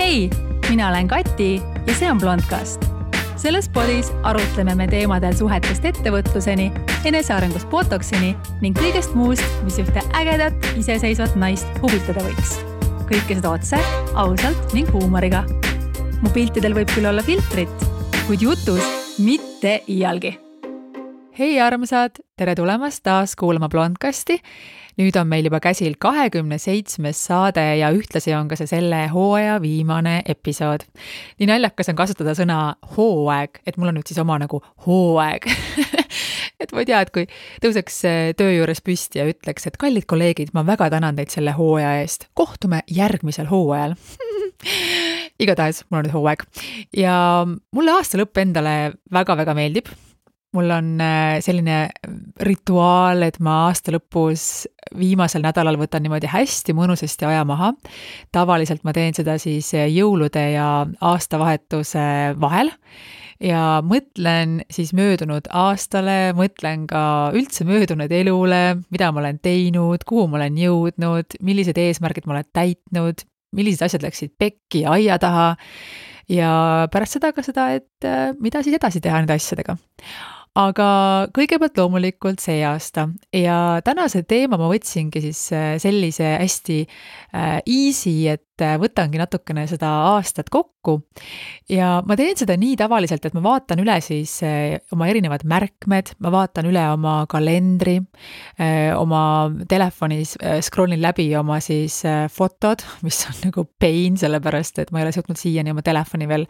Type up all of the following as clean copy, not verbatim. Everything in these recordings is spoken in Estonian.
Hei, mina olen Kati ja see on Blondcast. Selles podis arutleme me teemadel suhetest ettevõtluseni, enesearengust botoksini ning kõigest muust, mis ühte ägedat, iseseisvat naist huvitada võiks. Kõike seda otse, ausalt ning huumoriga. Mu piltidel võib küll olla filtrit, kuid jutus mitte iialgi. Hei armsad, tere tulemast taas kuulama Blondcasti. Nüüd on meil juba käsil 27. saade ja ühtlasi on ka see selle hooaja viimane episood. Nii naljakas on kasutada sõna hooaeg, et mul on nüüd siis oma nagu hooaeg. Et ma ei tea, et kui tõuseks töö juures püsti ja ütleks, et kallid kolleegid, ma väga tänan teid selle hooaja eest. Kohtume järgmisel hooajal. Igatahes, mul on nüüd hooaeg. Ja mulle aasta lõpp endale väga-väga meeldib. Mul on selline rituaal, et ma aasta lõpus viimasel nädalal võtan niimoodi hästi mõnusasti aja maha. Tavaliselt ma teen seda siis jõulude ja aastavahetuse vahel ja mõtlen siis möödunud aastale, mõtlen ka üldse möödunud elule, mida ma olen teinud, kuhu ma olen jõudnud, millised eesmärgid ma olen täitnud, millised asjad läksid pekki ja aia taha ja pärast seda ka seda, et mida siis edasi teha nende asjadega. Aga kõigepealt loomulikult see aasta ja tänase teema ma võtsingi siis sellise hästi easy, et võtangi natukene seda aastat kokku ja ma teen seda nii tavaliselt, et ma vaatan üle siis oma erinevad märkmed, ma vaatan üle oma kalendri, oma telefonis scrollin läbi oma siis fotod, mis on nagu pain, sellepärast, et ma ei ole suutnud siiani oma telefoni veel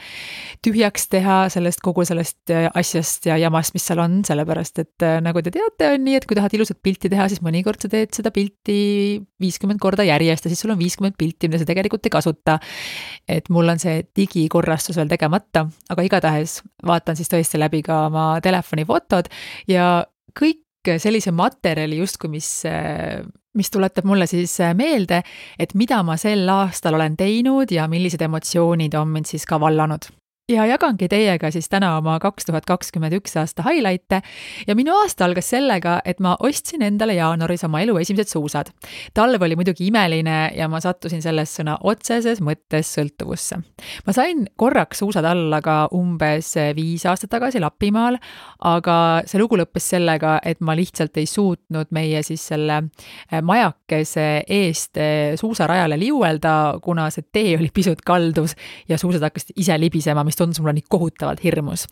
tühjaks teha kogu sellest asjast ja jamast, mis seal on, sellepärast, et nagu te teate, on nii, et kui tahad ilusat pilti teha, siis mõnikord sa teed seda pilti 50 korda järjest ja siis sul on 50 pilti, mida sa tegelikult ei kasuta. Et mul on see digikorrastus veel tegemata, aga igatahes vaatan siis tõesti läbi ka oma telefoni fotod ja kõik sellise materjali justkui, mis tuletab mulle siis meelde, et mida ma sel aastal olen teinud ja millised emotsioonid on mind siis ka vallanud. Ja jagangi teiega siis täna oma 2021 aasta highlight'e ja minu aasta algas sellega, et ma ostsin endale jaanuaris oma elu esimesed suusad. Talv oli muidugi imeline ja ma sattusin selles sõna otseses mõttes sõltuvusse. Ma sain korraks suusad alla ka umbes 5 aastat tagasi Lapimaal, aga see lugu lõppes sellega, et ma lihtsalt ei suutnud meie siis selle majakese eest suusarajale liuelda, kuna see tee oli pisut kaldus ja suusad hakkasid ise libisema, mis tundus mulle nii kohutavalt hirmus.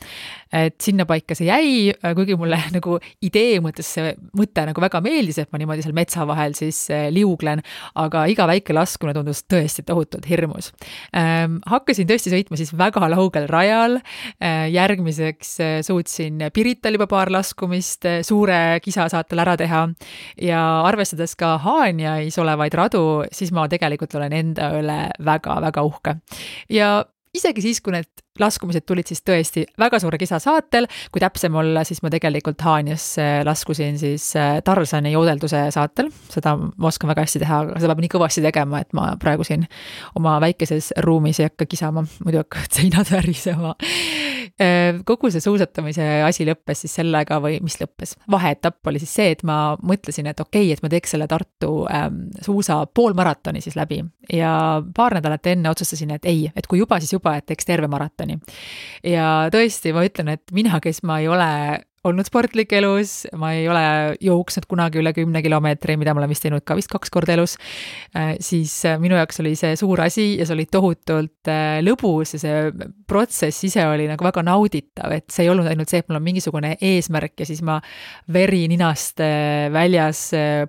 Et sinna paika see jäi, kuigi mulle nagu idee mõttes see mõte nagu väga meeldis, et ma niimoodi seal metsa vahel siis liuglen, aga iga väike laskune tundus tõesti tohutult hirmus. Hakkasin tõesti sõitma siis väga laugel rajal, järgmiseks suutsin Pirital juba paar laskumist suure kisasaatel ära teha ja arvestades ka Haanjais olevaid radu, siis ma tegelikult olen enda üle väga-väga uhke. Ja isegi siis, kui need laskumised tulid siis tõesti väga suure kisa saatel, kui täpsem olla, siis ma tegelikult Haanjas laskusin siis Tarzani joodelduse saatel. Seda ma oskan väga hästi teha, aga seda peab nii kõvasti tegema, et ma praegu siin oma väikeses ruumis ei hakka kisama, muidu hakkavad seinad värisema. Kogu see suusatamise asi lõppes siis sellega või mis lõppes? Vaheetapp oli siis see, et ma mõtlesin, et okei, et ma teeks selle Tartu suusa poolmaratoni siis läbi ja paar nädalat enne otsustasin, et ei, et kui juba, siis juba, et teeks terve maratoni. Ja tõesti, ma ütlen, et mina, kes ma ei ole olnud sportlik elus, ma ei ole jooksnud kunagi üle 10 kilomeetri, mida ma olen vist teinud ka vist 2 korda elus, siis minu jaoks oli see suur asi ja see oli tohutult lõbus ja see protsess ise oli nagu väga nauditav, et see ei olnud ainult see, et mul on mingisugune eesmärk ja siis ma veri ninast väljas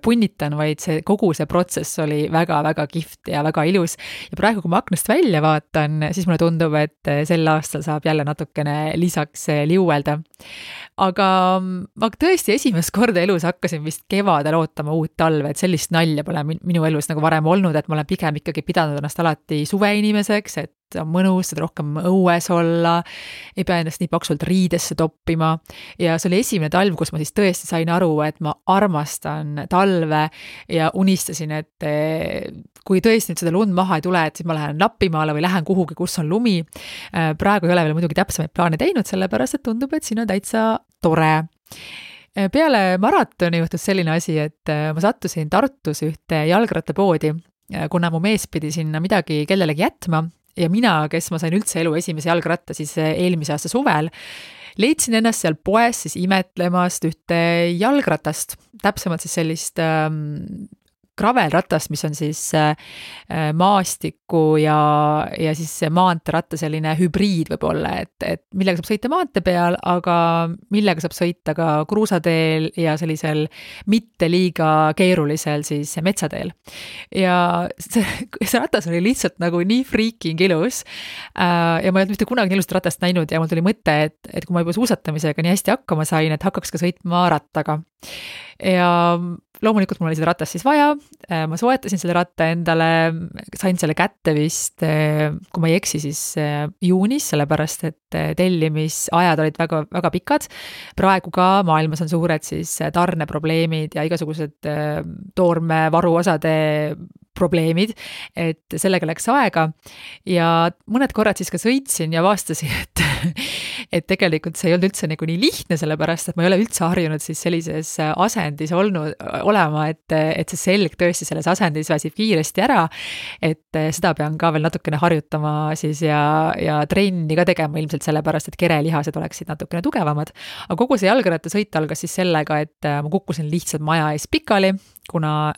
punnitan, vaid kogu see protsess oli väga-väga kihvt ja väga ilus. Ja praegu, kui ma aknast välja vaatan, siis mulle tundub, et sel aastal saab jälle natukene lisaks liuelda. Aga ma tõesti esimest korda elus hakkasin vist kevadel ootama uut talve, et sellist nalja pole minu elus nagu varem olnud, et ma olen pigem ikkagi pidanud ennast alati suveinimeseks, et on mõnus, et rohkem õues olla, ei pea ennast nii paksult riidesse toppima ja see oli esimene talv, kus ma siis tõesti sain aru, et ma armastan talve ja unistasin, et kui tõesti nüüd seda lund maha ei tule, et siis ma lähen Lapimaale või lähen kuhugi, kus on lumi. Praegu ei ole veel muidugi täpsemaid plaane teinud, sellepärast et tundub, et siin on täitsa tore. Peale maratoni juhtus selline asi, et ma sattusin Tartus ühte jalgrattapoodi, kuna mu mees pidi sinna midagi kellelegi jätma ja mina, kes ma sain üldse elu esimese jalgratta siis eelmise aasta suvel, leidsin ennast seal poes siis imetlemast ühte jalgratast, täpsemalt siis sellist gravelratast, mis on siis maastiku ja siis maanteeratta selline hübriid võib-olla, et millega saab sõita maantee peal, aga millega saab sõita ka kruusateel ja sellisel mitte liiga keerulisel siis metsateel. Ja see ratas oli lihtsalt nagu nii freaking ilus ja ma ei olnud mitte kunagi nii ilusat ratast näinud ja mul tuli mõte, et kui ma juba suusatamisega nii hästi hakkama sain, et hakkaks ka sõitma rattaga. Ja loomulikult mul oli seda ratast siis vaja, ma soetasin selle ratta endale, sain selle kätte vist, kui ma ei eksi, siis juunis, sellepärast et tellimisajad olid väga, väga pikad. Praegu ka maailmas on suured siis tarneprobleemid ja igasugused toormevaruosade probleemid, et sellega läks aega ja mõned korrad siis ka sõitsin ja avastasin, et tegelikult see ei olnud üldse nagu nii lihtne, sellepärast et ma ei ole üldse harjunud siis sellises asendis olema, et see selg tõesti selles asendis väsib kiiresti ära, et seda pean ka veel natukene harjutama siis ja trenni ka tegema ilmselt sellepärast, et kerelihased oleksid natukene tugevamad. Aga kogu see jalgrattasõit algas siis sellega, et ma kukkusin lihtsalt maja ees pikali, kuna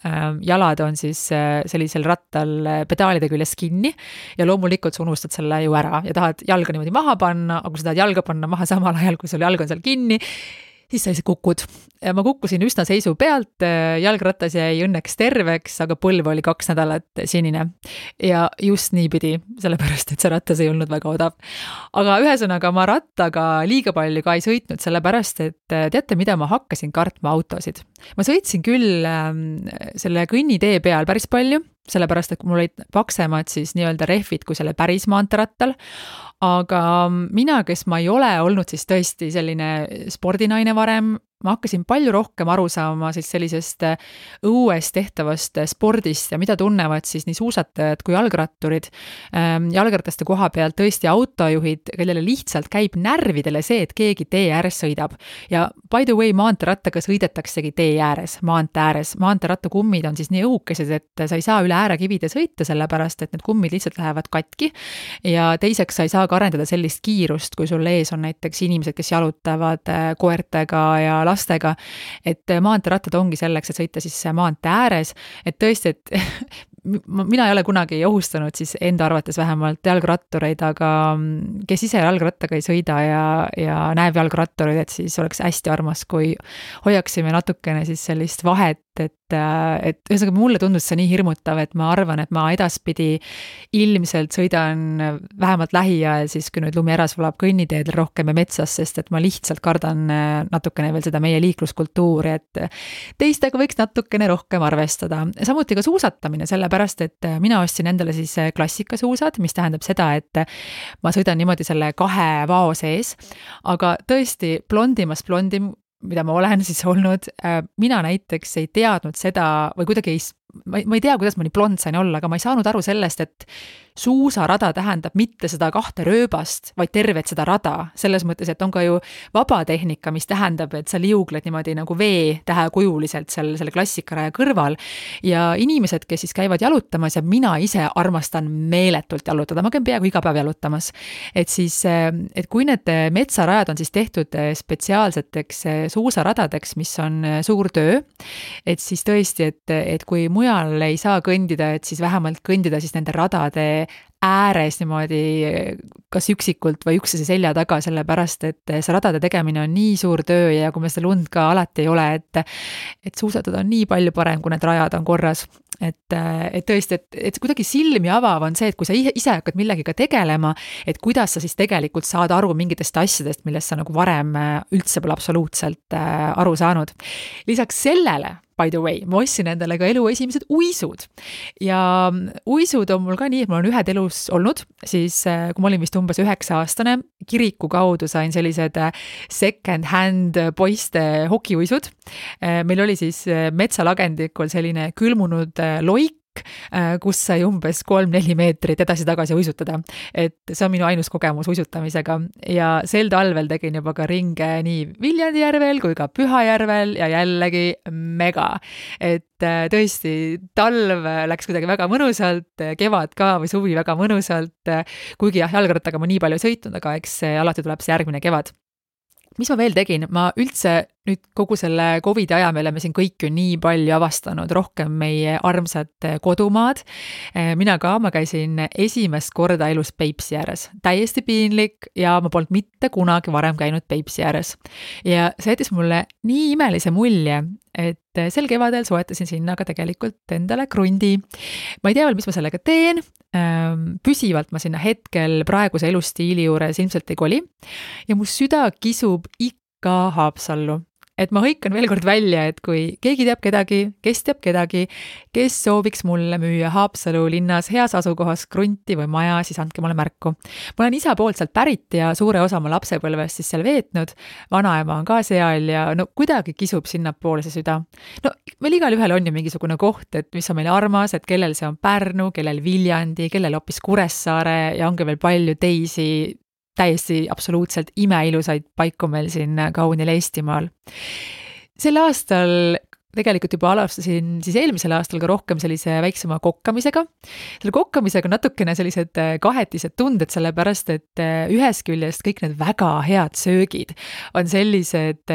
jalad on siis sellisel rattal pedaalide küljes kinni ja loomulikult sa unustad selle ju ära ja tahad jalga niimoodi maha panna, aga kui sa tahad jalga panna maha samal ajal, kui sul jalg on seal kinni, siis sa lihtsalt kukud. Ja ma kukkusin üsna seisu pealt, jalgrattas jäi õnneks terveks, aga põlv oli 2 nädalat sinine. Ja just nii pidi, sellepärast, et see rattas ei olnud väga odav. Aga ühesõnaga ma rattaga liiga palju ka ei sõitnud, sellepärast, et teate, mida ma hakkasin kartma autosid. Ma sõitsin küll selle kõnnitee peal päris palju, sellepärast, et mul olid paksemad siis nii-öelda rehvid kui selle päris maanterattal, aga mina, kes ma ei ole olnud siis tõesti selline spordinaine varem, ma hakkasin palju rohkem aru saama siis sellisest õues tehtavast spordist ja mida tunnevad siis nii suusatajad kui jalgratturid. Jalgrataste koha pealt tõesti autojuhid, kellele lihtsalt käib närvidele see, et keegi tee ääres sõidab. Ja by the way, maanteerattaga sõidetaksegi tee ääres, maantee ääres. Maanteerattakummid on siis nii õhukesed, et sa ei saa üle äärekivide sõita, sellepärast, et need kummid lihtsalt lähevad katki. Ja teiseks sa ei saa ka arendada sellist kiirust, kui sul ees on näiteks inimesed, kes jalutavad koertega ja lastega, et maanteerattad ongi selleks, et sõita siis maantee ääres, et tõesti, et mina ei ole kunagi ohustanud siis enda arvates vähemalt jalgrattureid, aga kes ise jalgrattaga ei sõida ja näeb jalgrattureid, et siis oleks hästi armas, kui hoiaksime natukene siis sellist vahet, et ühesõnaga mulle tundus see nii hirmutav, et ma arvan, et ma edaspidi ilmselt sõidan vähemalt lähiajal siis, kui nüüd lumi ära sulab kõnniteedel rohkem ja metsas, sest et ma lihtsalt kardan natukene veel seda meie liikluskultuuri, et teistega võiks natukene rohkem arvestada. Samuti ka suusatamine, sellepärast, et mina ostsin endale siis klassikasuusad, mis tähendab seda, et ma sõidan niimoodi selle 2 vao sees, aga tõesti blondimast blondim, mida ma olen siis olnud, mina näiteks ei teadnud seda või kuidagi ma ei tea, kuidas ma nii blond sain olla, aga ma ei saanud aru sellest, et suusarada tähendab mitte seda 2 rööbast, vaid tervet seda rada. Selles mõttes, et on ka ju vabatehnika, mis tähendab, et sa liugled niimoodi nagu V-tähekujuliselt selle klassikaraja kõrval. Ja inimesed, kes siis käivad jalutamas ja mina ise armastan meeletult jalutada, ma käin peaaegu iga päev jalutamas. Et siis, et kui need metsarajad on siis tehtud spetsiaalseteks suusaradadeks, mis on suur töö, et siis tõesti, et kui mujal ei saa kõndida, et siis vähemalt kõndida siis nende radade ääres niimoodi kas üksikult või üksteise selja taga, sellepärast, et see radade tegemine on nii suur töö ja kui me seda lund ka alati ei ole, et suusatada on nii palju parem, kui need rajad on korras. Et tõesti, et kuidagi silmi avav on see, et kui sa ise hakkad millegiga tegelema, et kuidas sa siis tegelikult saad aru mingitest asjadest, millest sa nagu varem üldse pole absoluutselt aru saanud. Lisaks sellele, by the way, ma ostsin endale ka elu esimesed uisud ja uisud on mul ka nii, et mul on ühed elus olnud, siis kui ma olin vist umbes 9-aastane, kiriku kaudu sain sellised second hand poiste hokiuisud. Meil oli siis metsalagendikul selline külmunud loik, park, kus sai umbes 3-4 meetrit edasi-tagasi uisutada. Et see on minu ainus kogemus uisutamisega ja sel talvel tegin juba ka ringe nii Viljandi järvel kui ka Pühajärvel ja jällegi mega. Et tõesti, talv läks kuidagi väga mõnusalt, kevad ka või suvi väga mõnusalt, kuigi jah, jalgrattaga ma nii palju sõitnud, aga eks alati tuleb see järgmine kevad. Mis ma veel tegin? Ma üldse nüüd kogu selle COVID aja me oleme siin kõik ju nii palju avastanud, rohkem meie armsad kodumaad. Mina ka, ma käisin esimest korda elus Peipsi ääres. Täiesti piinlik ja ma polnud mitte kunagi varem käinud Peipsi ääres. Ja see jättis mulle nii imelise mulje, et sel kevadel soetasin sinna ka tegelikult endale krundi. Ma ei tea veel, mis ma sellega teen. Püsivalt ma sinna hetkel praeguse elustiili juures ilmselt ei koli. Ja mu süda kisub ikka Haapsallu. Et ma hõikan veel kord välja, et kui keegi teab kedagi, kes sooviks mulle müüa Haapsalu linnas heas asukohas krunti või maja, siis andke mulle märku. Ma olen isa poolt sealt pärit ja suure osa oma lapsepõlvest siis seal veetnud. Vanaema on ka seal ja no kuidagi kisub sinnapoole see süda. No meil igal ühel on ju mingisugune koht, et mis on meile armas, et kellel see on Pärnu, kellel Viljandi, kellel hoopis Kuressaare ja ongi veel palju teisi täiesti absoluutselt imeilusaid paiku meil siin kaunil Eestimaal. Sel aastal tegelikult juba alustasin siis eelmisel aastal ka rohkem sellise väiksema kokkamisega. Selle kokkamisega natukene sellised kahetised tunded, sellepärast et ühest küljest kõik need väga head söögid on sellised,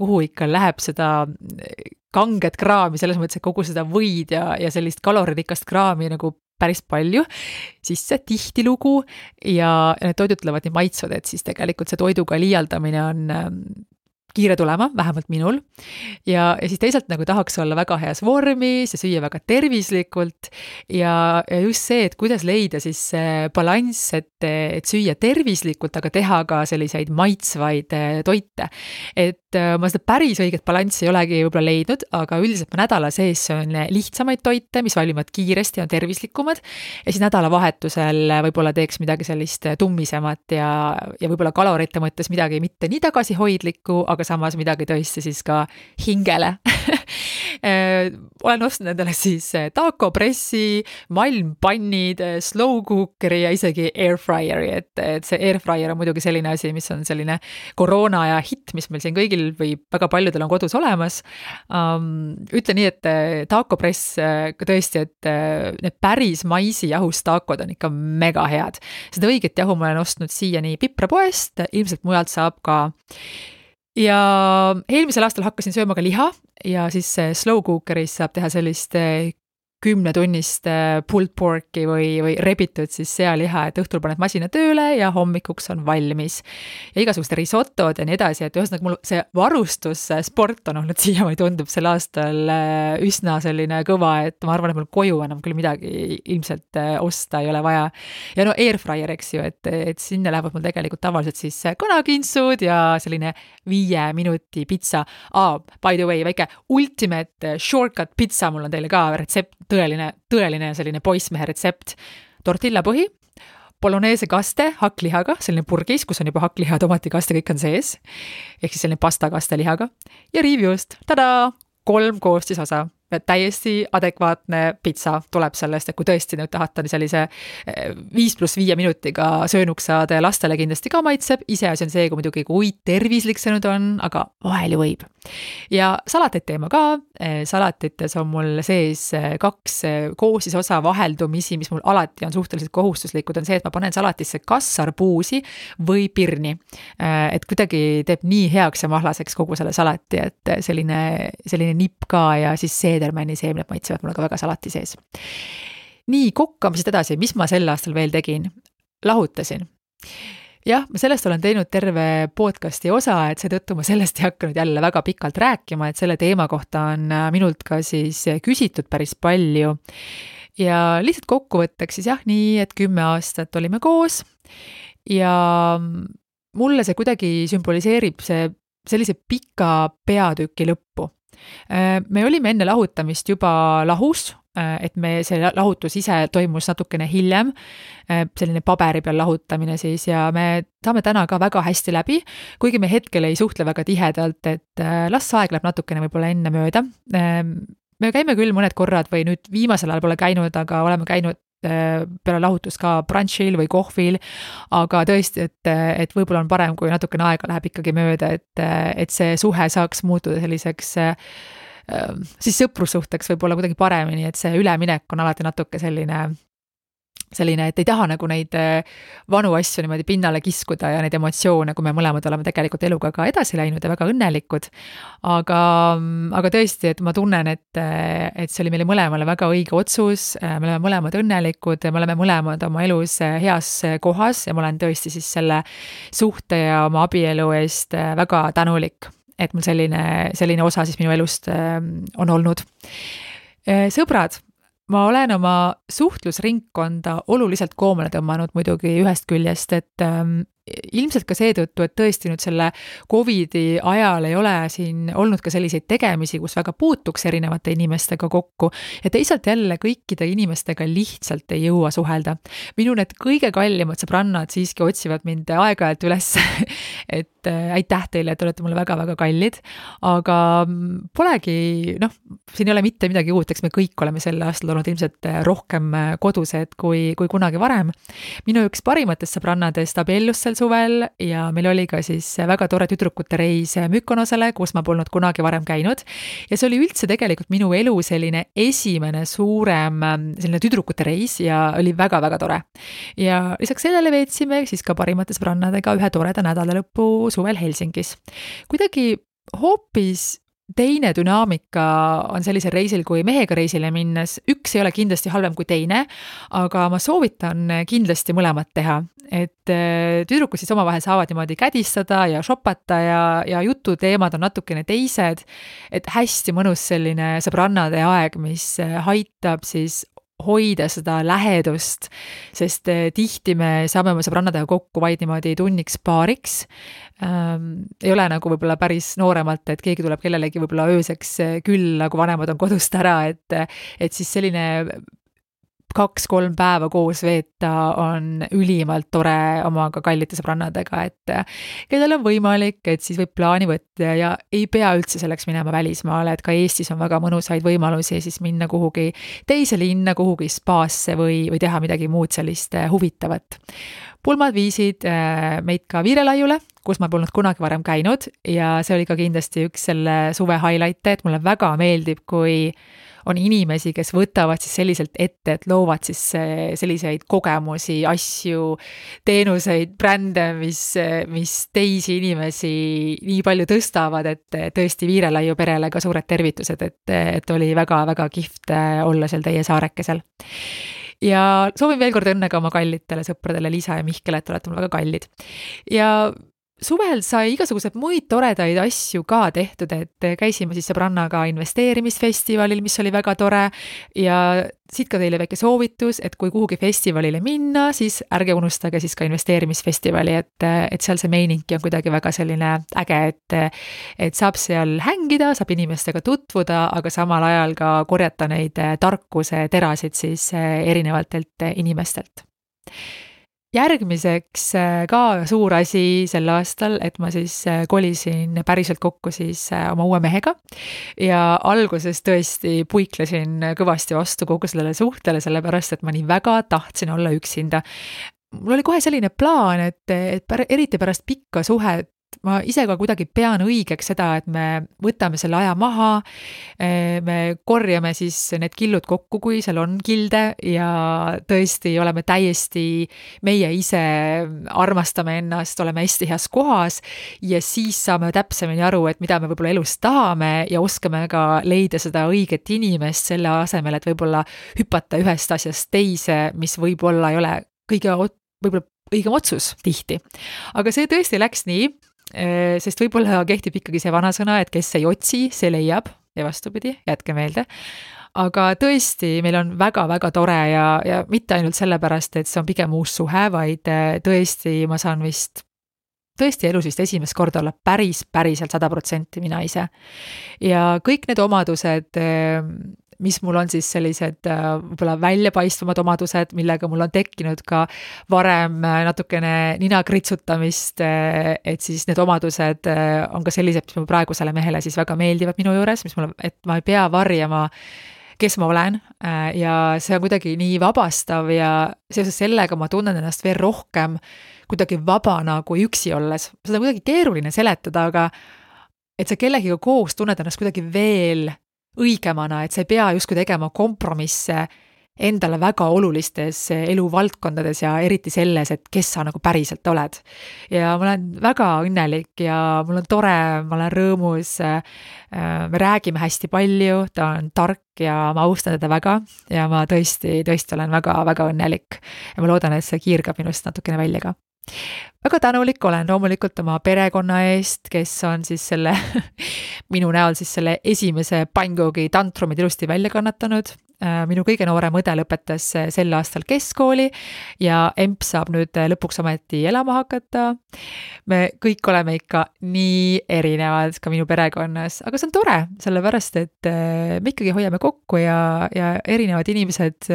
kuhu ikka läheb seda kanget kraami, selles mõttes, et kogu seda võid ja sellist kaloririkast kraami nagu päris palju, siis see tihtilugu ja need toidud tulevad nii maitsvad, et siis tegelikult see toiduga liialdamine on kiire tulema, vähemalt minul. Ja siis teisalt nagu tahaks olla väga heas vormis ja süüa väga tervislikult ja just see, et kuidas leida siis balanss, et süüa tervislikult, aga teha ka selliseid maitsvaid toite. Et ma seda päris õiget balanssi ei olegi võib-olla leidnud, aga üldiselt ma nädala sees söön lihtsamaid toite, mis valmivad kiiresti ja tervislikumad ja siis nädalavahetusel võib-olla teeks midagi sellist tummisemat ja võib-olla kalorite mõttes midagi mitte nii tagasihoidlikku, aga samas midagi tõesti siis ka hingele. Olen ostnud endale siis taco pressi, malmpannid, slow cookeri ja isegi airfryeri, et see airfryer on muidugi selline asi, mis on selline koroona ja hitt, mis meil siin kõigil või väga paljudel on kodus olemas. Ütlen nii, et taco press tõesti, et need päris maisi jahust tacod on ikka mega head. Seda õiget jahu ma olen ostnud siiani Piprapoest, ilmselt mujalt saab ka. Ja eelmisel aastal hakkasin sööma ka liha ja siis slow cookeris saab teha sellist 10-tunnist pulled porki või rebitud siis sealiha, et õhtul paned masina tööle ja hommikuks on valmis. Ja igasugust risotod ja nii edasi, et ühesõnaga mul see varustussport on olnud siiamaani tundub sel aastal üsna selline kõva, et ma arvan, et mul koju enam küll midagi ilmselt osta ei ole vaja. Ja no airfryer, eks ju, et sinna lähevad mul tegelikult tavaliselt siis kanakintsud ja selline 5 minuti pitsa. By the way, väike ultimate shortcut pitsa mul on teile ka retsept, tõeline selline poissmehe retsept. Tortilla põhi, bolognese kaste hakklihaga, selline purgis, kus on juba hakkliha, tomatikaste, kõik on sees. Ehk siis selline pasta kaste lihaga. Ja riivjuust, 3 koostisosa. Täiesti adekvaatne pitsa tuleb sellest, et kui tõesti nüüd tahate sellise 5+5 minutiga söönuks saada ja lastele kindlasti ka maitseb, ise asi on see, kui muidugi kui tervislik see nüüd on, aga vahel ju võib. Ja salateid teema ka, salatites on mul sees 2 koostisosa vaheldumisi, mis mul alati on suhteliselt kohustuslikud, on see, et ma panen salatisse kas arbuusi või pirni. Et kuidagi teeb nii heaks ja mahlaseks kogu selle salati, et selline nipp ka ja siis seedermänni seemned maitsevad mulle ka väga salati sees. Nii, kokkamisest edasi, mis ma sel aastal veel tegin? Lahutasin. Jah, ma sellest olen teinud terve podcasti osa, et seetõttu ma sellest ei hakanud jälle väga pikalt rääkima, et selle teema kohta on minult ka siis küsitud päris palju. Ja lihtsalt kokkuvõtteks siis jah, nii, et 10 aastat olime koos ja mulle see kuidagi sümboliseerib sellise pika peatüki lõppu. Me olime enne lahutamist juba lahus, et see lahutus ise toimus natukene hiljem, selline paberi peal lahutamine siis ja me saame täna ka väga hästi läbi, kuigi me hetkel ei suhtle väga tihedalt, et las aeg läheb natukene võib-olla enne mööda. me käime küll mõned korrad või nüüd viimasel ajal pole käinud, aga oleme käinud peale lahutust ka brunchil või kohvil, aga tõesti, et võib-olla on parem, kui natukene aega läheb ikkagi mööda, et see suhe saaks muutuda selliseks siis sõprussuhteks võib-olla kuidagi paremini, et see üleminek on alati natuke selline, et ei taha nagu neid vanu asju niimoodi pinnale kiskuda ja neid emotsioone, kui me mõlemad oleme tegelikult eluga ka edasi läinud ja väga õnnelikud. Aga tõesti, et ma tunnen, et see oli meile mõlemale väga õige otsus, me oleme mõlemad õnnelikud, me oleme mõlemad oma elus heas kohas ja ma olen tõesti siis selle suhte ja oma abielu eest väga tänulik, et mul selline osa siis minu elust on olnud. Sõbrad, ma olen oma suhtlusringkonda oluliselt koomale tõmmanud muidugi ühest küljest, et ilmselt ka seetõttu, et tõesti nüüd selle Covidi ajal ei ole siin olnud ka selliseid tegemisi, kus väga puutuks erinevate inimestega kokku ja teisalt jälle kõikide inimestega lihtsalt ei jõua suhelda. Minu need kõige kallimad sõbrannad siiski otsivad mind aeg-ajalt üles, et aitäh teile, et olete mulle väga-väga kallid, aga polegi, siin ei ole mitte midagi uut, eks me kõik oleme sel aastal olnud ilmselt rohkem kodused kui kunagi varem. Minu üks parimatest sõbrannadest abiellus sel suvel ja meil oli ka siis väga tore tüdrukute reis Mykonosele, kus ma polnud kunagi varem käinud ja see oli üldse tegelikult minu elu selline esimene suurem selline tüdrukute reis ja oli väga-väga tore. Ja lisaks sellele veetsime siis ka parimate sõbrannadega ühe toreda nädalalõppu suvel Helsingis. Kuidagi hoopis teine dünaamika on sellisel reisil kui mehega reisile minnes. Üks ei ole kindlasti halvem kui teine, aga ma soovitan kindlasti mõlemat teha. Et tüdrukud siis omavahel saavad niimoodi kädistada ja shoppata ja jututeemad on natukene teised. Et hästi mõnus selline sõbrannade aeg, mis aitab siis hoida seda lähedust, sest tihti me saame oma sõbrannadega kokku vaid niimoodi tunniks paariks. Ei ole nagu võib-olla päris nooremalt, et keegi tuleb kellelegi võib-olla ööseks külla, kui vanemad on kodust ära, et siis selline 2-3 päeva koos veeta on ülimalt tore omaga kallite sõbrannadega, et kellel on võimalik, et siis võib plaani võtta ja ei pea üldse selleks minema välismaale, et ka Eestis on väga mõnusaid võimalusi siis minna kuhugi teise linna, kuhugi spaasse või teha midagi muud sellist huvitavat. Pulmad viisid meid ka Viirelaiule, kus ma polnud kunagi varem käinud ja see oli ka kindlasti üks selle suve highlight'e, et mulle väga meeldib, kui on inimesi, kes võtavad siis selliselt ette, et loovad siis selliseid kogemusi, asju, teenuseid, brände, mis teisi inimesi nii palju tõstavad, et tõesti Viirelaiu perele ka suured tervitused, et oli väga-väga kihvt olla seal teie saarekesel. Ja soovin veel kord õnne ka oma kallitele sõpradele Liisa ja Mihkel, et olete mul väga kallid. Ja suvel sai igasugused muid toredaid asju ka tehtud, et käisime siis sõbrannaga investeerimisfestivalil, mis oli väga tore ja siit ka teile väike soovitus, et kui kuhugi festivalile minna, siis ärge unustage siis ka investeerimisfestivali, et seal see meiningi on kuidagi väga selline äge, et saab seal hängida, saab inimestega tutvuda, aga samal ajal ka korjata neid tarkuse terasid siis erinevatelt inimestelt. Järgmiseks ka suur asi sel aastal, et ma siis kolisin päriselt kokku siis oma uue mehega ja alguses tõesti puiklesin kõvasti vastu kogu sellele suhtele, sellepärast, et ma nii väga tahtsin olla üksinda. Mul oli kohe selline plaan, et eriti pärast pikka suhet ma ise ka kuidagi pean õigeks seda, et me võtame selle aja maha, me korjame siis need killud kokku, kui seal on kilde ja tõesti oleme täiesti meie ise, armastame ennast, oleme hästi heas kohas ja siis saame täpsemini aru, et mida me võib-olla elus tahame ja oskame ka leida seda õiget inimest selle asemel, et võib-olla hüpata ühest asjast teise, mis võib-olla ei ole võib-olla õigem otsus tihti. Aga see tõesti läks nii, sest võib-olla kehtib ikkagi see vanasõna, et kes ei otsi, see leiab ja vastupidi, jätke meelde. Aga tõesti, meil on väga-väga tore ja mitte ainult sellepärast, et see on pigem uus suhe, vaid tõesti ma saan tõesti elus vist esimest korda olla päriselt 100% mina ise. Ja kõik need omadused mis mul on siis sellised võib-olla väljapaistvamad omadused, millega mul on tekkinud ka varem natukene nina kritsutamist, et siis need omadused on ka sellised, mis mu praegusele mehele siis väga meeldivad minu juures, et ma ei pea varjama, kes ma olen ja see on kuidagi nii vabastav ja seoses sellega ma tunnen ennast veel rohkem kuidagi vabana kui üksi olles. Seda on kuidagi keeruline seletada, aga et sa kellegiga koos tunned ennast kuidagi veel õigemana, et sa ei pea justkui tegema kompromisse endale väga olulistes eluvaldkondades ja eriti selles, et kes sa nagu päriselt oled. Ja ma olen väga õnnelik ja mul on tore, ma olen rõõmus, me räägime hästi palju, ta on tark ja ma austan teda väga ja ma tõesti olen väga õnnelik ja ma loodan, et see kiirgab minust natukene välja ka. Väga tänulik olen loomulikult oma perekonna eest, kes on siis selle minu näol siis selle esimese pannkoogi tantrumid ilusti välja kannatanud. Minu kõige noorem õde lõpetas sel aastal keskkooli ja emp saab nüüd lõpuks ometi elama hakata. Me kõik oleme ikka nii erinevad ka minu perekonnas, aga see on tore, sellepärast et me ikkagi hoiame kokku ja erinevad inimesed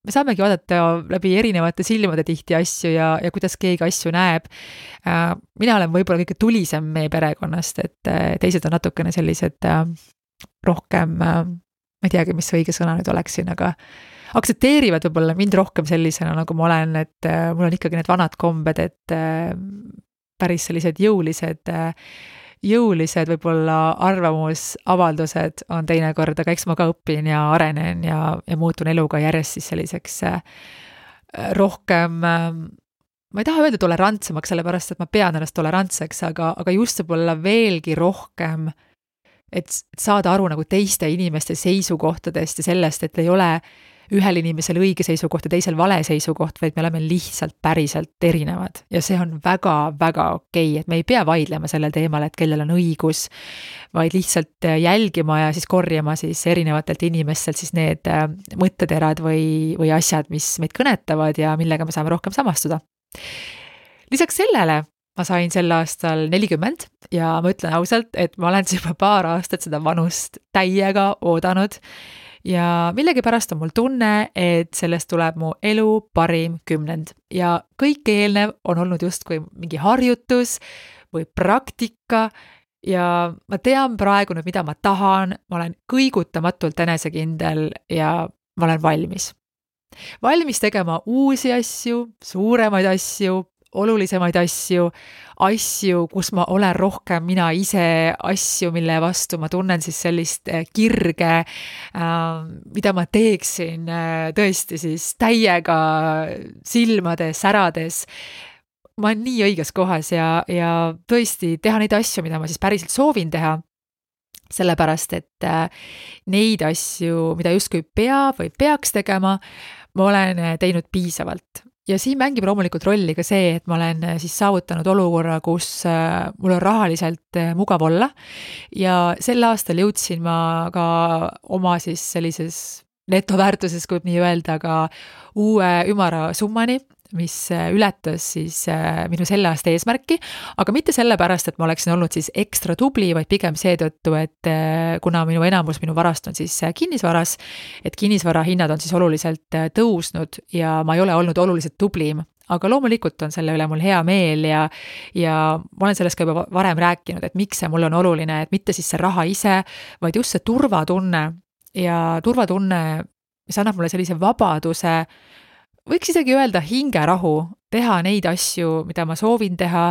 me saamegi vaadata läbi erinevate silmade tihti asju ja kuidas keegi asju näeb. Mina olen võib-olla kõige tulisem meie perekonnast, et teised on natukene sellised rohkem, ma ei teagi, mis õige sõna nüüd oleks siin, aga aktsepteerivad võib-olla mind rohkem sellisena, nagu ma olen, et mul on ikkagi need vanad kombed, et päris sellised jõulised võib-olla arvamusavaldused on teinekord, aga eks ma ka õpin ja arenen ja muutun eluga järjest siis selliseks rohkem, ma ei taha öelda tolerantsemaks, sellepärast, et ma pean ennast tolerantseks, aga just võib-olla veelgi rohkem, et saada aru nagu teiste inimeste seisukohtadest ja sellest, et ei ole ühel inimesel õige seisukoht ja teisel vale seisukoht, vaid me oleme lihtsalt päriselt erinevad. Ja see on väga okei, et me ei pea vaidlema sellel teemal, et kellel on õigus, vaid lihtsalt jälgima ja siis korjama siis erinevatelt inimestelt siis need mõtteterad või asjad, mis meid kõnetavad ja millega me saame rohkem samastuda. Lisaks sellele ma sain sel aastal 40 ja ma ütlen ausalt, et ma olen juba paar aastat seda vanust täiega oodanud ja millegipärast on mul tunne, et sellest tuleb mu elu parim 10 ja kõik eelnev on olnud justkui mingi harjutus või praktika ja ma tean praegu nüüd, mida ma tahan, ma olen kõigutamatult enesekindel ja ma olen valmis. Valmis tegema uusi asju, suuremaid asju, olulisemaid asju, kus ma olen rohkem mina ise, asju, mille vastu ma tunnen siis sellist kirge, mida ma teeksin tõesti siis täiega silmade särades. Ma olen nii õiges kohas ja tõesti teha neid asju, mida ma siis päriselt soovin teha, sellepärast, et neid asju, mida justkui peab või peaks tegema, ma olen teinud piisavalt. Ja siin mängib loomulikult rolli ka see, et ma olen siis saavutanud olukorra, kus mul on rahaliselt mugav olla ja sel aastal jõudsin ma ka oma siis sellises netoväärtuses, kui nii öelda, ka uue ümara summani, mis ületas siis minu selle aasta eesmärki, aga mitte sellepärast, et ma oleksin olnud siis ekstra tubli, vaid pigem seetõttu, et kuna enamus minu varast on siis kinnisvaras, et kinnisvara hinnad on siis oluliselt tõusnud ja ma ei ole olnud oluliselt tublim, aga loomulikult on selle üle mul hea meel ja ma olen sellest ka juba varem rääkinud, et miks see mul on oluline, et mitte siis see raha ise, vaid just see turvatunne ja turvatunne, mis annab mulle sellise vabaduse, võiks isegi öelda hingerahu, teha neid asju, mida ma soovin teha.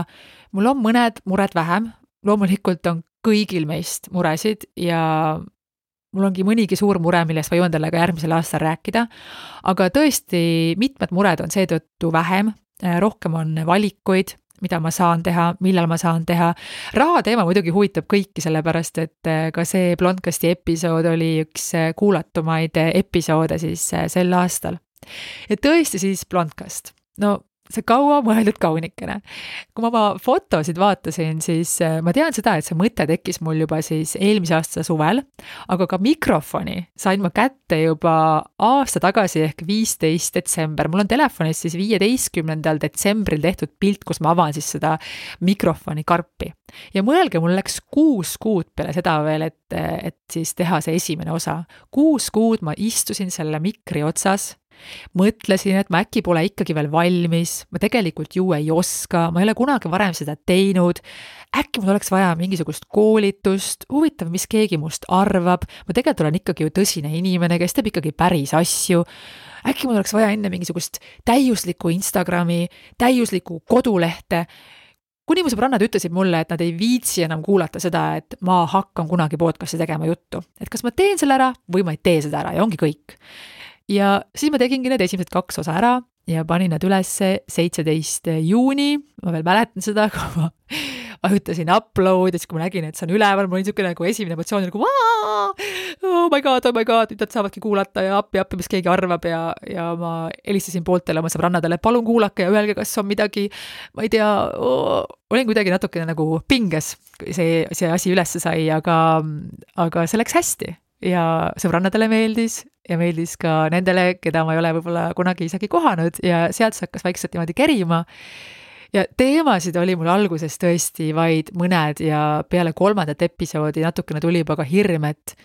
Mul on mõned mured vähem, loomulikult on kõigil meist muresid ja mul ongi mõnigi suur mure, millest ma jõuan talle ka järgmisel aastal rääkida, aga tõesti mitmed mured on seetõttu vähem, rohkem on valikuid, mida ma saan teha, millal ma saan teha. Raha teema muidugi huvitab kõiki, sellepärast et ka see Blondcasti episood oli üks kuulatumaid episoode siis sel aastal. Ja tõesti siis Blondcast. No see kaua mõeldud kaunikene. Kui ma oma fotosid vaatasin, siis ma tean seda, et see mõte tekkis mul juba siis eelmise aasta suvel, aga ka mikrofoni sain ma kätte juba aasta tagasi ehk 15 detsember. Mul on telefonis siis 15. detsembril tehtud pilt, kus ma avan siis seda mikrofoni karpi. Ja mõelge, mul läks 6 kuud peale seda veel, et siis teha see esimene osa. 6 kuud ma istusin selle mikri otsas, mõtlesin, et ma äkki pole ikkagi veel valmis, ma tegelikult ju ei oska, ma ei ole kunagi varem seda teinud, äkki mul oleks vaja mingisugust koolitust, huvitav, mis keegi must arvab, ma tegelikult olen ikkagi ju tõsine inimene, kes teeb ikkagi päris asju, äkki mul oleks vaja enne mingisugust täiuslikku Instagrami, täiuslikku kodulehte, kuni mu sõbrannad ütlesid mulle, et nad ei viitsi enam kuulata seda, et ma hakkan kunagi podcasti tegema juttu, et kas ma teen selle ära või ma ei tee seda ära ja ongi kõik. Ja siis ma tegingi need esimesed 2 osa ära ja panin nad üles 17. juuni, ma veel mäletan seda, kui ma vajutasin upload ja siis kui ma nägin, et see on üleval, mul oli niisugune nagu esimene emotsioon nagu oh my god, nüüd nad saavadki kuulata ja appi, mis keegi arvab ja ma helistasin pooltele oma sõbrannadele, palun kuulake ja öelge, kas on midagi, ma ei tea, olin kuidagi natukene nagu pinges, see asi ülesse sai, aga see läks hästi ja sõbrannadele meeldis ja meeldis ka nendele, keda ma ei ole võib-olla kunagi isegi kohanud ja sealt see hakkas vaikselt niimoodi kerima. Ja teemasid oli mul alguses tõesti vaid mõned ja peale 3. episoodi natukene tuli juba ka hirm, et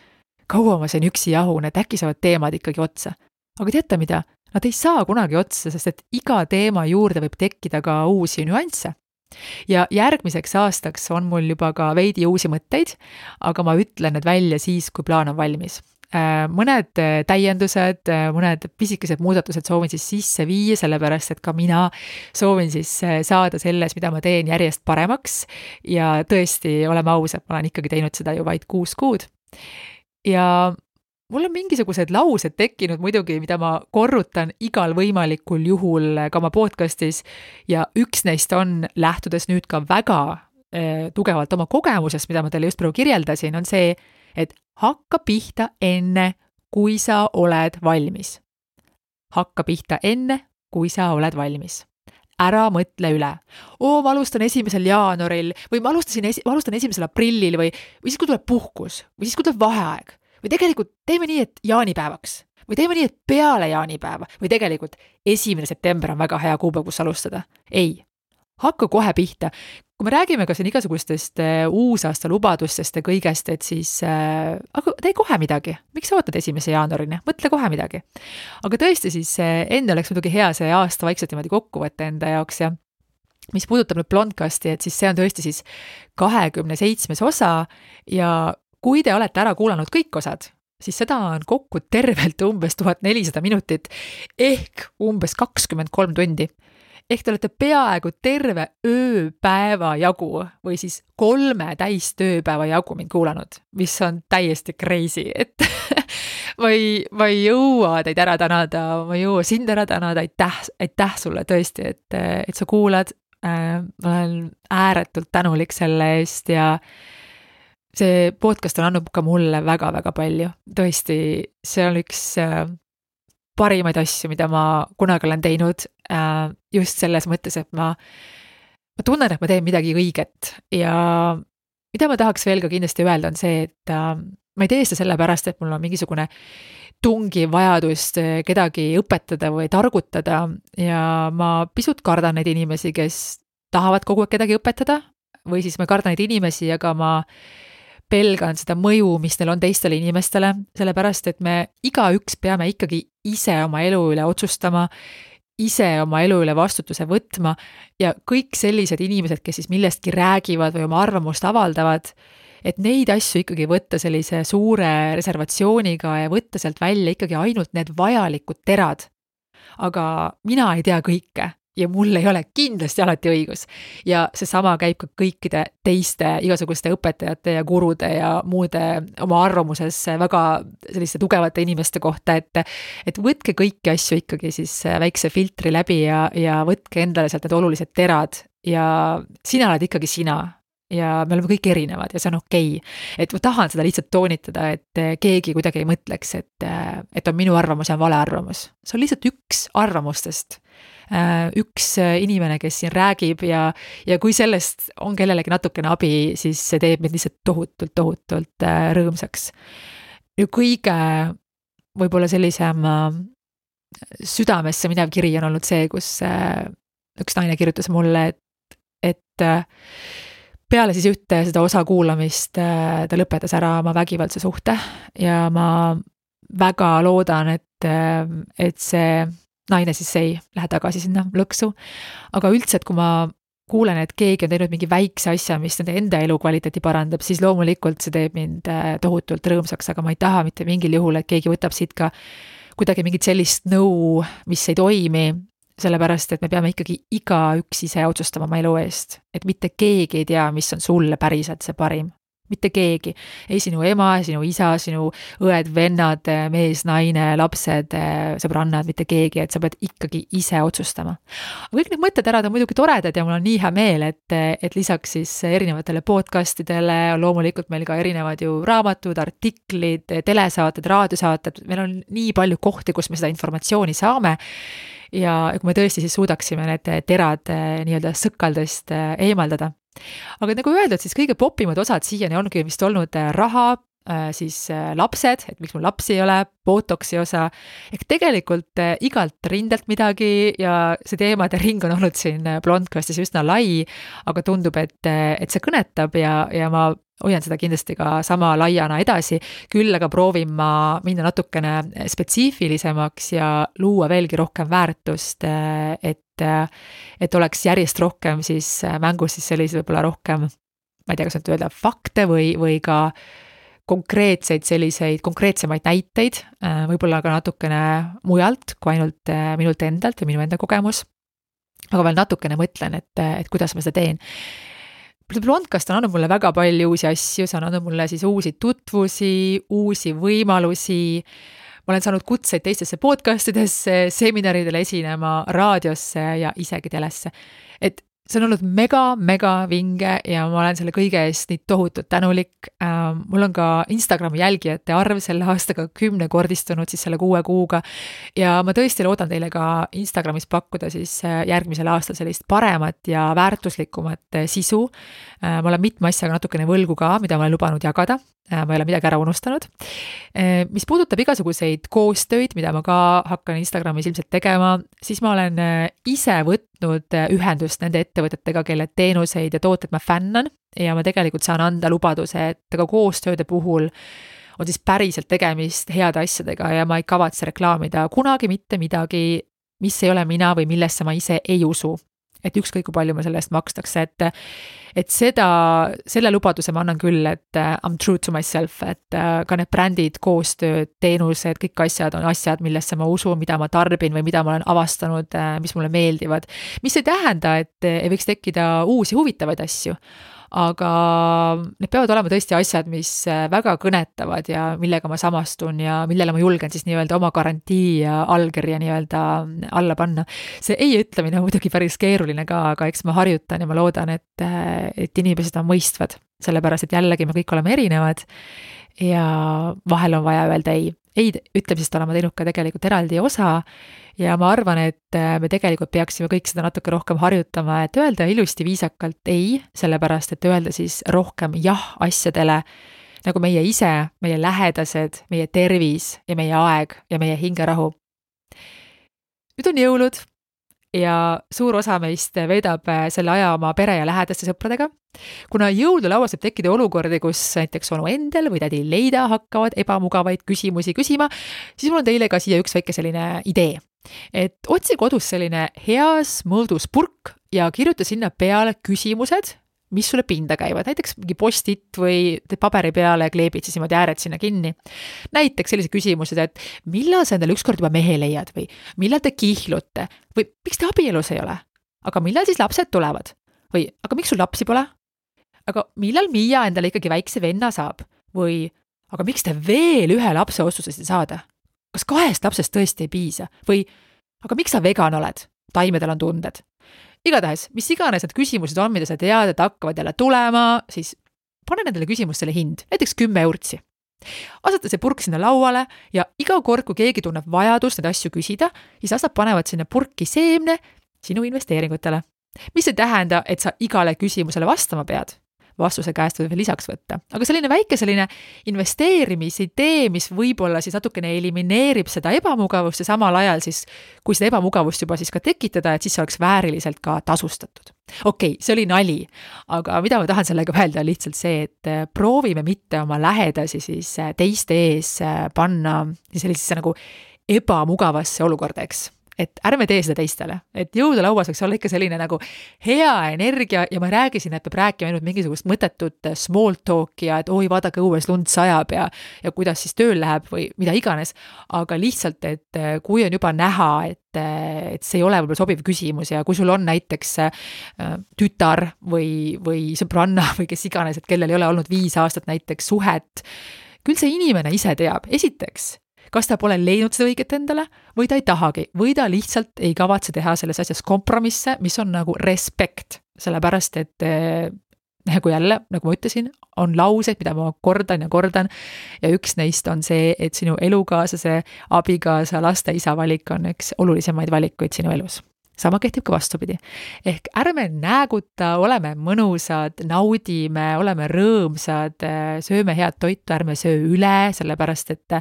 kaua ma sain üksi jahun, et äkki saavad teemad ikkagi otsa. Aga teate mida? Nad ei saa kunagi otsa, sest et iga teema juurde võib tekkida ka uusi nüansse. Ja järgmiseks aastaks on mul juba ka veidi uusi mõtteid, aga ma ütlen need välja siis, kui plaan on valmis. Mõned täiendused, mõned pisikesed muudatused soovin siis sisse viia, sellepärast et ka mina soovin siis saada selles, mida ma teen järjest paremaks ja tõesti, oleme ausad, ma olen ikkagi teinud seda ju vaid 6 kuud. Ja mul on mingisugused laused tekkinud muidugi, mida ma korrutan igal võimalikul juhul ka oma podcastis ja üks neist on, lähtudes nüüd ka väga tugevalt oma kogemusest, mida ma teile just praegu kirjeldasin, on see, et hakka pihta enne, kui sa oled valmis. Hakka pihta enne, kui sa oled valmis. Ära mõtle üle. Ma alustan 1. jaanuaril või ma alustan 1. aprillil või siis, kui tuleb puhkus või siis, kui tuleb vaheaeg. Või tegelikult teeme nii, et jaanipäevaks. Või teeme nii, et peale jaanipäeva. Või tegelikult 1. september on väga hea kuupäev, kus alustada. Ei. Hakka kohe pihta. Kui me räägime ka siin igasugustest uusaasta lubadustest ja kõigest, et siis aga tee kohe midagi. Miks sa ootad 1. jaanuarini? Mõtle kohe midagi. Aga tõesti siis enne oleks muidugi hea see aasta vaikselt niimoodi kokku võtta enda jaoks ja mis puudutab nüüd Blondcasti, et siis see on tõesti siis 27. osa ja kui te olete ära kuulanud kõik osad, siis seda on kokku tervelt umbes 1400 minutit ehk umbes 23 tundi. Ehk te olete peaaegu terve ööpäeva jagu või siis 3 täistööpäeva jagu mind kuulanud, mis on täiesti crazy, et ma ei jõua teid ära tänada, ma ei jõua sind ära tänada, aitäh sulle tõesti, et sa kuulad, ma olen ääretult tänulik selle eest ja see podcast on andnud ka mulle väga-väga palju, tõesti, see on üks parimaid asju, mida ma kunagi olen teinud, just selles mõttes, et ma tunnen, et ma teen midagi õiget ja mida ma tahaks veel ka kindlasti öelda on see, et ma ei tee seda sellepärast, et mul on mingisugune tungiv vajadust kedagi õpetada või targutada ja ma pisut kardan neid inimesi, kes tahavad kogu aeg kedagi õpetada või siis ma kardan neid inimesi, aga ma pelgan seda mõju, mis neil on teistele inimestele, sellepärast, et me igaüks peame ikkagi ise oma elu üle otsustama, ise oma elu üle vastutuse võtma ja kõik sellised inimesed, kes siis millestki räägivad või oma arvamust avaldavad, et neid asju ikkagi võtta sellise suure reservatsiooniga ja võtta sealt välja ikkagi ainult need vajalikud terad. Aga mina ei tea kõike ja mul ei ole kindlasti alati õigus. Ja seesama käib ka kõikide teiste igasuguste õpetajate ja gurude ja muude oma arvamuses väga selliste tugevate inimeste kohta, et võtke kõiki asju ikkagi siis väikse filtri läbi ja võtke endale sealt need olulised terad ja sina oled ikkagi sina ja me oleme kõik erinevad ja see on okei. Et ma tahan seda lihtsalt toonitada, et keegi kuidagi ei mõtleks, et on minu arvamus ja on vale arvamus. See on lihtsalt üks arvamustest. Üks inimene, kes siin räägib ja kui sellest on kellelegi natukene abi, siis see teeb meid lihtsalt tohutult rõõmsaks. Ja kõige võib-olla sellisem südamesse minev kiri on olnud see, kus üks naine kirjutas mulle, et peale siis ühte seda osa kuulamist ta lõpetas ära oma vägivaldse suhte ja ma väga loodan, et see naine siis ei lähe tagasi sinna lõksu. Aga üldse, et kui ma kuulen, et keegi on teinud mingi väikse asja, mis nende enda elukvaliteeti parandab, siis loomulikult see teeb mind tohutult rõõmsaks, aga ma ei taha mitte mingil juhul, et keegi võtab siit ka kuidagi mingit sellist nõu, mis ei toimi, sellepärast, et me peame ikkagi igaüks ise otsustama oma elu eest. Et mitte keegi ei tea, mis on sulle päriselt see parim. Mitte keegi. Ei sinu ema, sinu isa, sinu õed, vennad, mees, naine, lapsed, sõbrannad, mitte keegi, et sa pead ikkagi ise otsustama. Aga kõik need mõtted on muidugi toredad ja mul on nii hea meel, et lisaks siis erinevatele podcastidele on loomulikult meil ka erinevad ju raamatud, artiklid, telesaated, raadiosaated, meil on nii palju kohti, kus me seda informatsiooni saame. Ja kui me tõesti siis suudaksime need terad nii-öelda sõkaldest eemaldada. Aga nagu öeldud, siis kõige popimad osad siiani ongi vist olnud raha, siis lapsed, et miks mul lapsi ei ole, botoksi osa, ehk tegelikult igalt rindelt midagi ja see teemade ring on olnud siin Blondcastis üsna lai, aga tundub, et see kõnetab ja ma hoian seda kindlasti ka sama laiana edasi, küll aga proovin ma minna natukene spetsiifilisemaks ja luua veelgi rohkem väärtust, et oleks järjest rohkem siis mängus siis sellised võib-olla rohkem, ma ei tea, kas nüüd öelda fakte või ka konkreetsemaid näiteid, võib-olla ka natukene mujalt kui ainult minult endalt või minu enda kogemus, aga veel natukene mõtlen, et kuidas ma seda teen. Blondcast on andnud mulle väga palju uusi asju, see on andnud mulle siis uusi tutvusi, uusi võimalusi, ma olen saanud kutseid teistesse podcastidesse, seminaridele esinema, raadiosse ja isegi telesse. Et see on olnud mega vinge ja ma olen selle kõige eest nii tohutult tänulik. Mul on ka Instagrami jälgijate arv selle aastaga 10-kordistunud siis selle 6 kuuga ja ma tõesti loodan teile ka Instagramis pakkuda siis järgmisel aastal sellist paremat ja väärtuslikumat sisu. Ma olen mitme asjaga natukene võlgu ka, mida ma olen lubanud jagada. Ma ei ole midagi ära unustanud. Mis puudutab igasuguseid koostöid, mida ma ka hakkan Instagramis ilmselt tegema, siis ma olen ise võtnud ühendust nende ettevõtetega, kelle teenuseid ja tooted ma fännan ja ma tegelikult saan anda lubaduse, et ka koostööde puhul on siis päriselt tegemist heade asjadega ja ma ei kavatse reklaamida kunagi mitte midagi, mis ei ole mina või millesse ma ise ei usu. Et ükskõik kui palju ma selle eest makstakse, et selle lubaduse ma annan küll, et I'm true to myself, et ka need brändid, koostööd, teenused, kõik asjad on asjad, millesse ma usun, mida ma tarbin või mida ma olen avastanud, mis mulle meeldivad, mis ei tähenda, et ei võiks tekkida uusi huvitavaid asju. Aga need peavad olema tõesti asjad, mis väga kõnetavad ja millega ma samastun ja millele ma julgen siis nii-öelda oma garantii ja allkirja nii-öelda alla panna. See ei ütlemine on muidugi päris keeruline ka, aga eks ma harjutan ja ma loodan, et inimesed on mõistvad, sellepärast et jällegi me kõik oleme erinevad ja vahel on vaja öelda ei. Ei ütlemisest olema teinud ka tegelikult eraldi osa ja ma arvan, et me tegelikult peaksime kõik seda natuke rohkem harjutama, et öelda ilusti viisakalt ei, sellepärast et öelda siis rohkem jah asjadele, nagu meie ise, meie lähedased, meie tervis ja meie aeg ja meie hingerahu. Nüüd on jõulud ja suur osa meist veedab selle aja oma pere ja lähedaste sõpradega. Kuna jõululauas võib tekkida olukordi, kus näiteks onu endel või tädi Leida hakkavad ebamugavaid küsimusi küsima, siis mul on teile ka siia üks väike selline idee. Et otsi kodus selline heas mõõdus purk ja kirjuta sinna peale küsimused, mis sulle pinda käivad, näiteks mingi postit või paberi peale kleebid siis niimoodi ääred sinna kinni. Näiteks sellised küsimused, et millal sa endale ükskord juba mehe leiad või millal te kihlute või miks te abielus ei ole, aga millal siis lapsed tulevad või aga miks sul lapsi pole, aga millal Miia endale ikkagi väikse venna saab või aga miks te veel ühe lapse otsustasite saada, kas 2 lapsest tõesti ei piisa või aga miks sa vegan oled, taimedel on tunded. igatahes, mis iganes need küsimused on, mida sa tead, et hakkavad jälle tulema, siis pane nendele küsimustele hind, näiteks 10 eurtsi. Aseta see purk sinna lauale ja iga kord, kui keegi tunneb vajadust neid asju küsida, siis asjad panevad sinna purki seemne sinu investeeringutele. Mis ei tähenda, et sa igale küsimusele vastama pead. Vastuse käest võib veel lisaks võtta. Aga selline väike investeerimisidee, mis võib-olla siis natukene elimineerib seda ebamugavust ja samal ajal siis, kui seda ebamugavust juba siis ka tekitada, et siis see oleks vääriliselt ka tasustatud. Okei, see oli nali, aga mida ma tahan sellega öelda on lihtsalt see, et proovime mitte oma lähedasi siis teiste ees panna sellisesse nagu ebamugavasse olukorda, eks. Et ärme tee seda teistele, et jõululauas võiks olla ikka selline nagu hea energia ja ma räägisin, et peab rääkima ainult mingisugust mõttetut small talki ja et oi, vaadake õues lund sajab ja kuidas siis tööl läheb või mida iganes, aga lihtsalt, et kui on juba näha, et see ei ole võib-olla sobiv küsimus ja kui sul on näiteks tütar või sõbranna või kes iganes, et kellel ei ole olnud 5 aastat näiteks suhet, küll see inimene ise teab, esiteks, kas ta pole leidnud seda õiget endale või ta ei tahagi, või ta lihtsalt ei kavatse teha selles asjas kompromisse, mis on nagu respekt, sellepärast et nagu jälle, nagu ma ütlesin, on laused, mida ma kordan ja üks neist on see, et sinu elukaaslase, abikaasa, laste isa valik on üks olulisemaid valikuid sinu elus. Sama kehtib ka vastupidi. Ehk ärme nääguta, oleme mõnusad, naudime, oleme rõõmsad, sööme head toitu, ärme söö üle, sellepärast et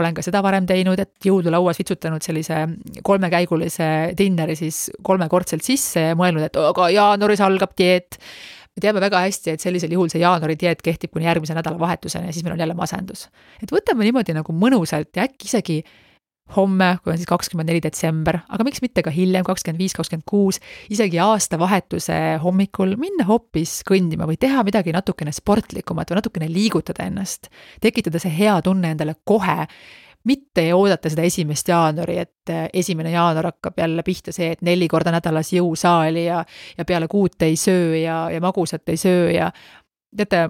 olen ka seda varem teinud, et jõululauas vitsutanud sellise 3-käigulise dinneri siis 3-kordselt sisse ja mõelnud, et aga jaanuaris algab dieet. Me teame väga hästi, et sellisel juhul see jaanuari dieet kehtib kuni järgmise nädala vahetuseni ja siis meil on jälle masendus. Et võtame niimoodi nagu mõnusalt ja äkki isegi homme, kui on siis 24 detsember, aga miks mitte ka hiljem, 25, 26, isegi aastavahetuse hommikul minna hoopis kõndima või teha midagi natukene sportlikumat või natukene liigutada ennast. Tekitada see hea tunne endale kohe, mitte ei oodata seda 1. jaanuari, et 1. jaanuar hakkab jälle pihta see, et 4 korda nädalas jõusaali ja peale 6 ei söö ja magusat ei söö ja teate,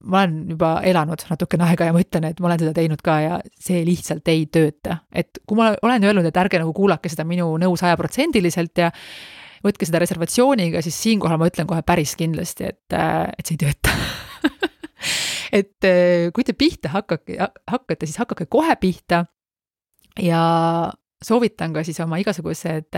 ma olen juba elanud natukene aega ja ma ütlen, et ma olen seda teinud ka ja see lihtsalt ei tööta. Et kui ma olen öelnud, et ärge nagu kuulake seda minu nõu 100% ja võtke seda reservatsiooniga, siis siinkohal ma ütlen kohe päris kindlasti, et see ei tööta. Et kui te pihta hakkate, siis hakake kohe pihta ja soovitan ka siis oma igasugused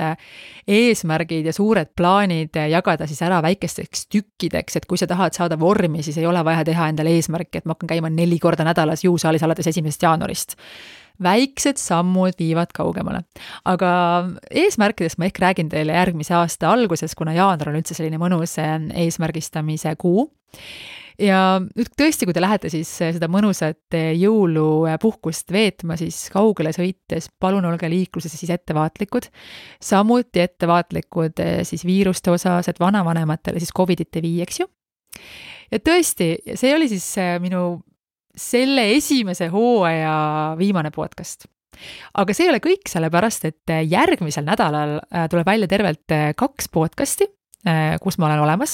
eesmärgid ja suured plaanid jagada siis ära väikesteks tükkideks, et kui sa tahad saada vormi, siis ei ole vaja teha endale eesmärki, et ma hakkan käima 4 korda nädalas jõusaalis alates 1. jaanuarist. Väiksed sammud viivad kaugemale. Aga eesmärkidest ma ehk räägin teile järgmise aasta alguses, kuna jaanuar on üldse selline mõnus eesmärgistamise kuu. Ja nüüd tõesti, kui te lähete siis seda mõnusat jõulupuhkust veetma, siis kaugele sõites palun olge liikluses siis ettevaatlikud. Samuti ettevaatlikud siis viiruste osas, et vanavanematele siis COVIDit ei vii, eks ju. Ja tõesti, see oli siis minu selle esimese hooaja viimane podcast. Aga see ei ole kõik, sellepärast, et järgmisel nädalal tuleb välja tervelt 2 podcasti, kus ma olen olemas.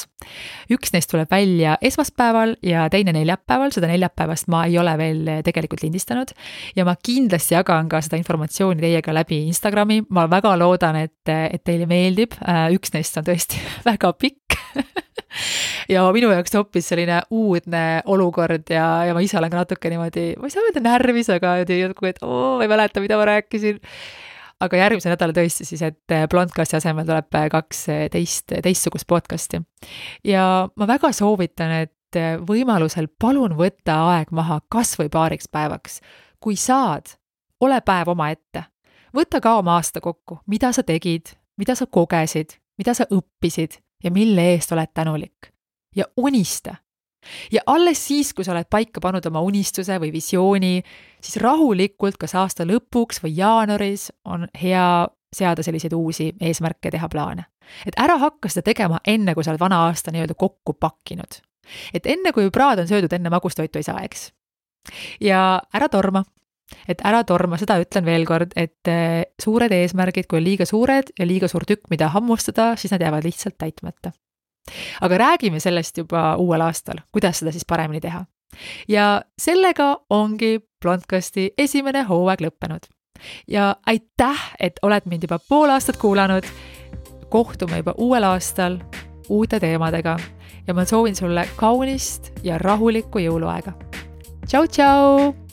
Üks neist tuleb välja esmaspäeval ja teine neljapäeval, seda neljapäevast ma ei ole veel tegelikult lindistanud ja ma kindlasti jagan ka seda informatsiooni teiega läbi Instagrami. Ma väga loodan, et teile meeldib. Üks neist on tõesti väga pikk ja minu jaoks hoopis selline uudne olukord ja ma ise olen ka natuke niimoodi, ma ei saa öelda närvis, aga et ma ei mäleta, mida ma rääkisin. Aga järgmise nädala tõesti siis, et Blondcasti asemel tuleb 2 teistsugust podcasti. Ja ma väga soovitan, et võimalusel palun võtta aeg maha kas või paariks päevaks. Kui saad, ole päev oma ette. Võta ka oma aasta kokku, mida sa tegid, mida sa kogesid, mida sa õppisid ja mille eest oled tänulik. Ja unista. Ja alles siis, kui sa oled paika pannud oma unistuse või visiooni, siis rahulikult kas aasta lõpuks või jaanuaris on hea seada selliseid uusi eesmärke, teha plaane. Et ära hakka seda tegema enne, kui sa oled vana aasta nii-öelda kokku pakkinud. Et enne, kui praad on söödud, enne magustoitu ei saa, eks. Ja ära torma. Et ära torma, seda ütlen veel kord, et suured eesmärgid, kui on liiga suured ja liiga suur tükk, mida hammustada, siis nad jäävad lihtsalt täitmata. Aga räägime sellest juba uuel aastal, kuidas seda siis paremini teha. Ja sellega ongi Blondcasti esimene hooaeg lõppenud. Ja aitäh, et oled mind juba pool aastat kuulanud. kohtume juba uuel aastal uute teemadega ja ma soovin sulle kaunist ja rahulikku jõuluaega. Tšau, tšau!